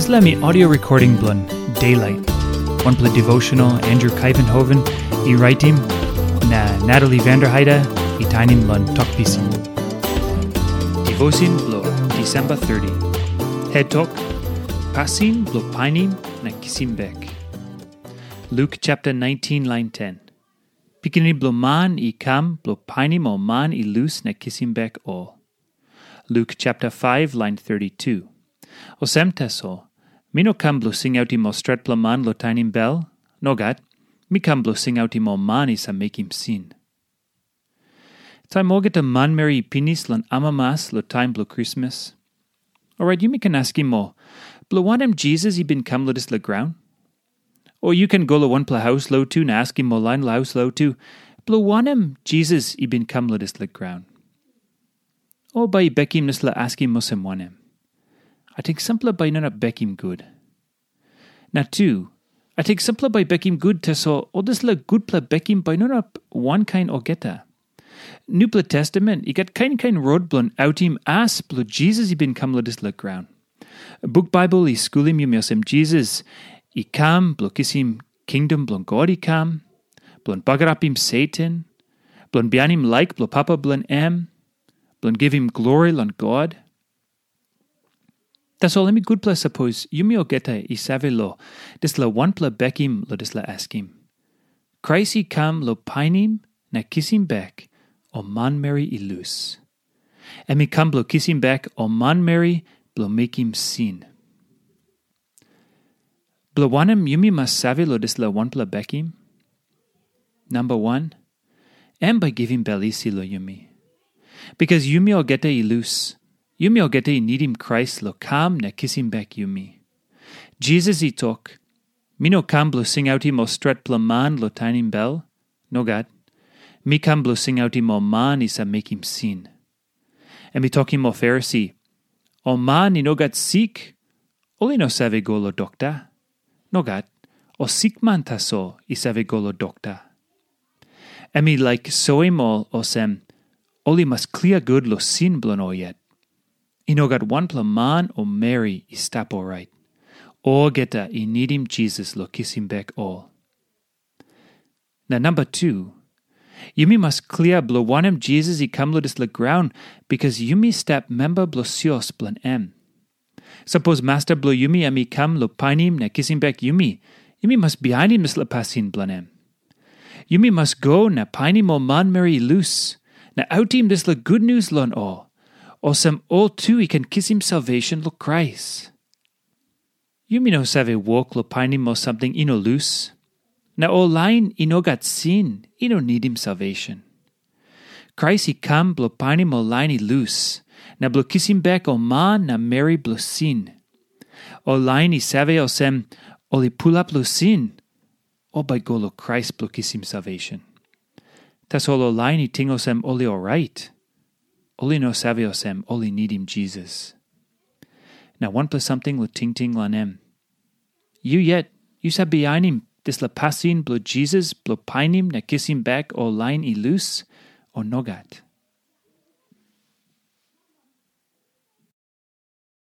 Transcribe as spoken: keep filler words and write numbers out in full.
Dispela mi audio recording bilong Daylight, wanpela devotional Andrew Kaivenhoven i raitim, na Natalie Vanderheide i tainim long Tok Pisin. Devotion bilong December thirty. Het tok, pasin bilong painim na kisim bek. Luk chapter nineteen, lain ten. Pikinini bilong Man i kam bilong painim ol man i lus na kisim bek ol. Luk chapter five, lain thirty-two. Olsem tasol, mi no kam bilong singautim ol stretpela man long tainim bel. Nogat, mi kam bilong singautim ol man i save mekim sin. Taim olgeta manmeri i pinis long amamas long taim bilong Krismas, orait yumi ken askim ol, bilong wanem Jisas i bin kam long dispela graun? O yu ken go long wanpela haus lotu na askim ol lain long haus lotu, bilong wanem Jisas i bin kam long dispela graun? O bai i bekim dispela askim olsem wanem? Ating sampela bai i no inap bekim gut. Na tu, ating sampela bai i bekim gut, tasol ol dispela gutpela bekim bai i no inap wankain olgeta. Nupela Testamen i gat kain kain rot bilong autim as bilong Jisas i bin kam long dispela graun. Buk Baibel i skulim yumi olsem Jisas i kam bilong kisim kingdom bilong God i kam, bilong bagarapim Satan, bilong bihainim laik bilong Papa bilong em, bilong givim glori long God. Tasol em i gutpela sapos yumi olgeta i save long dispela wanpela bekim long dispela askim. Krais i kam long painim na kisim bek ol manmeri i lus. Em i kam bilong kisim bek ol manmeri bilong mekim sin. Bilong wanem yumi mas save long dispela wanpela bekim? Namba wan, em bai givim bel isi long yumi. Bikas yumi olgeta i lus, yumi olgeta i nidim Krais long kam na kisim bek yumi. Jisas i tok, mi no kam bilong singautim ol stretpela man long tainim bel. Nogat. Mi kam bilong singautim ol man i save mekim sin. Em i tokim ol Farisi, ol man i no gat sik, ol i no save go long dokta. Nogat, ol sikman tasol i save go long dokta. Em i laik soim ol olsem, ol i mas klia gut long sin bilong ol yet. I no gat wanpela man o meri i stap orait. Olgeta i nidim Jisas long kisim bek ol. Na namba tu, yumi mas klia bilong wanem Jisas i kam long dispela graun, bikas yumi stap memba bilong sios bilong em. Sapos masta bilong yumi em i kam long painim na kisim bek yumi, yumi mas bihainim dispela pasin bilong em. Yumi mas go na painim ol manmeri i lus, na autim dispela gutnius long ol, olsem ol tu i ken kisim salvation long Krais. Yumi no save wok long painim ol samting i no lus. Na ol lain i no gat sin i no nidim salvation. Krais i kam bilong painim ol lain i lus, na bilong kisim bek ol man na meri bilong sin. Ol lain i save olsem, ol i pulap long sin, ol bai go long Krais bilong kisim salvation. Tasol ol lain i ting olsem ol i orait, ol i no save olsem ol i nidim Jisas. Na wanpela samting long tingting long em. Yu yet, yu save bihainim dispela pasin bilong Jisas bilong painim na kisim bek ol lain i lus, o nogat?